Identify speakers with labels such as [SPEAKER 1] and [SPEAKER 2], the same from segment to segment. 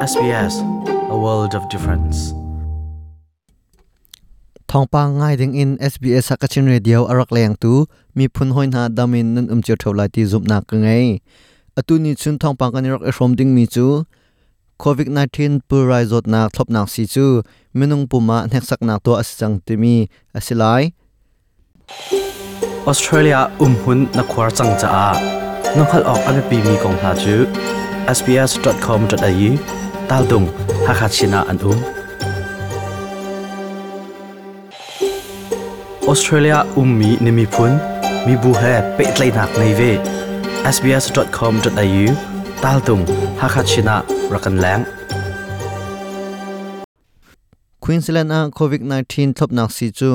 [SPEAKER 1] SBS, a world of difference.
[SPEAKER 2] Thawngpang ngai ding in SBS Hakachin Radio a rak leng tu miphun hoi hna damin nan um cio tho lai ti zumhnak ka ngei. Atu ni chun thawngpang kan i rak i hrawm ding mi cu COVID-19 pulrai zawtnak thlopnak si cu minung pum ah hneksaknak tuah a si cang timi a si lai.
[SPEAKER 1] Australia umhun na khuar cang caah na hngalh awk a biapimi kong hna cu sbs.com.au taldung Hakha Chin ah an um. Australia ummi na miphun mibu he pehtlaihnak ngei ve. sbs.com.au taltung Hakha Chin ah rak kan leng.
[SPEAKER 2] Queensland ah COVID-19 thlopnak sii cu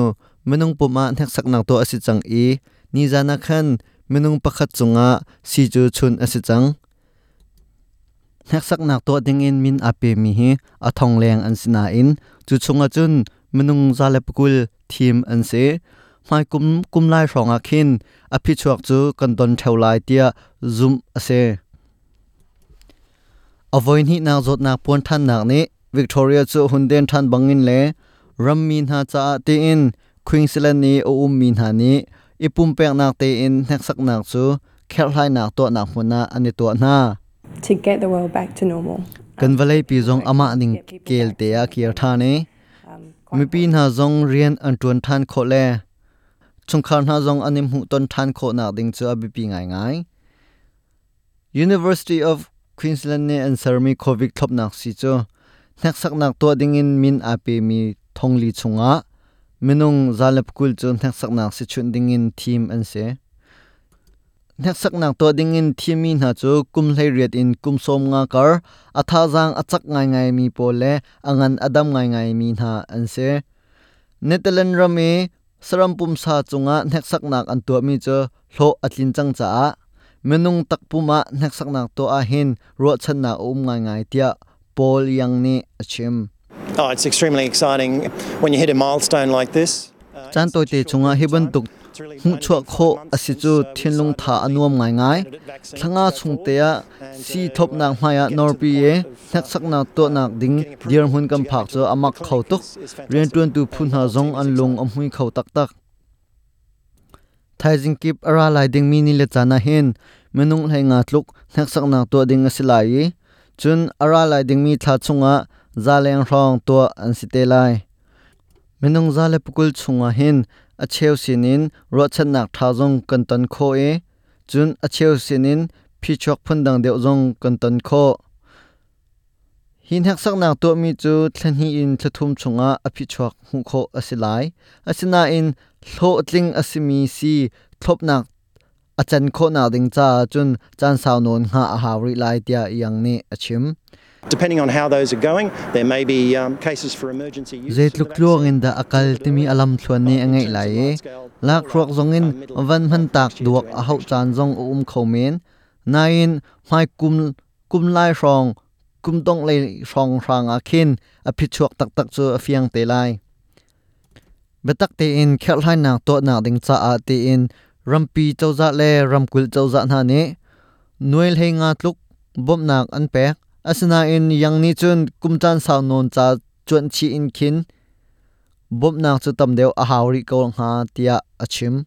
[SPEAKER 2] minung pum ah hneksaknak tuah a si cang i nizan ah khan minung pakhat cungah sii cu chunh a si cang. Hneksaknak tuah dingin min aa pemi hi a thong leng an si nain cu chungah cun minung 120 thim an si. Hmaikum kum lai hrawngah khin a phichuak cu kan don ṭheo lai tiah zumh a si. A voihnihnak zawtnak puan ṭhannak nih Victoria cu hun den ṭhan bangin le rammi hna caah tiin Queensland i a ummi hna nih i pumpeknak tein hneksaknak cu kherhhlainak tuahnak hmun ah an i tuah hna.
[SPEAKER 3] To get the world back to normal.
[SPEAKER 2] Kan vawleipi zong amah ning kel te ah kir ṭhan i mipi hna zong rian an ṭuan ṭhan khawh le chungkhar hna zong an i hmuhton ṭhan khawhnak ding cu a biapi ngaingai. University of Queensland nih an sermi COVID thlopnak sii cu hneksaknak tuah dingin min aa pemi thongli chungah minung 120 cu hneksaknak si chunh dingin thim an si. Hneksaknak tuah dingin thimmi hna cu kum 18 in kum 50 kar a thazaang a cak ngaingaimi pawl le a ngan a dam ngaingaimi hna an si. Netherlands ram i Saram pumsa cungah hneksaknak an tuahmi cu hlawh a tlin cang caah minung takpum ah hneksaknak tuah ahhin ruahchannak a um ngaingai tiah Paul Yang nih a chim.
[SPEAKER 4] Oh, it's extremely exciting when you hit a milestone like this.
[SPEAKER 2] Caan tawite chungah hi bantuk hmuhchuah khawh a si cu thinlung tha a nuam ngaingai. Thla nga chung te ah sii thlopnak hmaiah nawrpi i hneksaknak tuahnak ding dirhmun kan phak cu a mak kho tuk. Rianṭuantu phu hna zong an lung a hmui kho taktak. Thaizing kip a ra lai dingmi ni le caan ah hin minung 15 tluk hneksaknak tuah ding a si lai i cun a ra lai dingmi thla chungah za leng hrawng tuah an si te lai. Minung 120 chungah hin a cheu sinin ruahchannak ṭha zong kan ton khawh i cun a cheu sinin phichuak phundang deuh zong kan ton khawh. Hi hneksaknak tuahmi cu thla hnih in thla thum chungah a phichuak hmuh khawh a si lai. Asinain hlawhtling a simi sii thlopnak a can khawhnak ding caah cun caan sau nawn hngah a hau rih lai tiah Young nih a chim.
[SPEAKER 4] Depending on how those are going, there may be cases for emergency use.
[SPEAKER 2] Zeitluk tluang in dah a kal timi a lamthluan nih a ngeih lai i lakhruak zongin van hmantak duak a hauh caan zong a um kho men. Nain hmai kum kum lai hrawng kum dongh lei hrawng hrang ah khin a phichuak taktak cu a fiang te lai. Biatak tein kherhhlainak tuahnak ding caah tiin rampi cozah le ramkulh cozah hna nih nuai 15 tluk bawmhnak an pek. Asinain Yang nih cun kum caan sau nawn ca cuanh chih in khin bawmhnak cu tam deuh a hau rih ko hnga tiah a chim.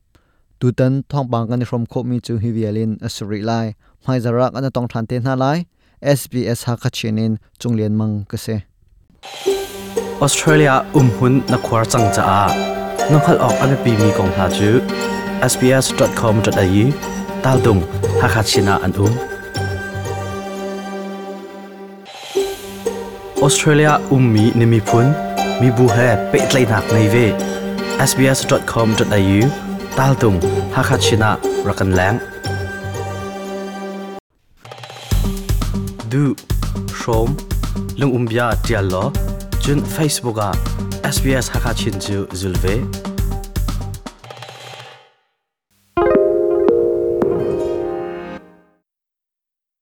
[SPEAKER 2] Tutan thawngpang kan i hrawm khawhmi cu hi vial in a si rih lai. Hmaizarh ah kan i tong ṭhan te hna lai. SBS Hakha Chin in Cung Lian Mang ka si.
[SPEAKER 1] Australia umhmun na khuar cang caah na hngalh awk a biapimi kong hna cu sbs.com.au taldung Hakha Chin ah an um. Australia ummi na miphun, mibu he pehtlaihnak ngei ve. sbs.com.au taltung Hakha Chin ah rak kan leng. Duh, hrawm, lungumbia ṭial law cun Facebook ah SBS Hakha Chin cu zul ve.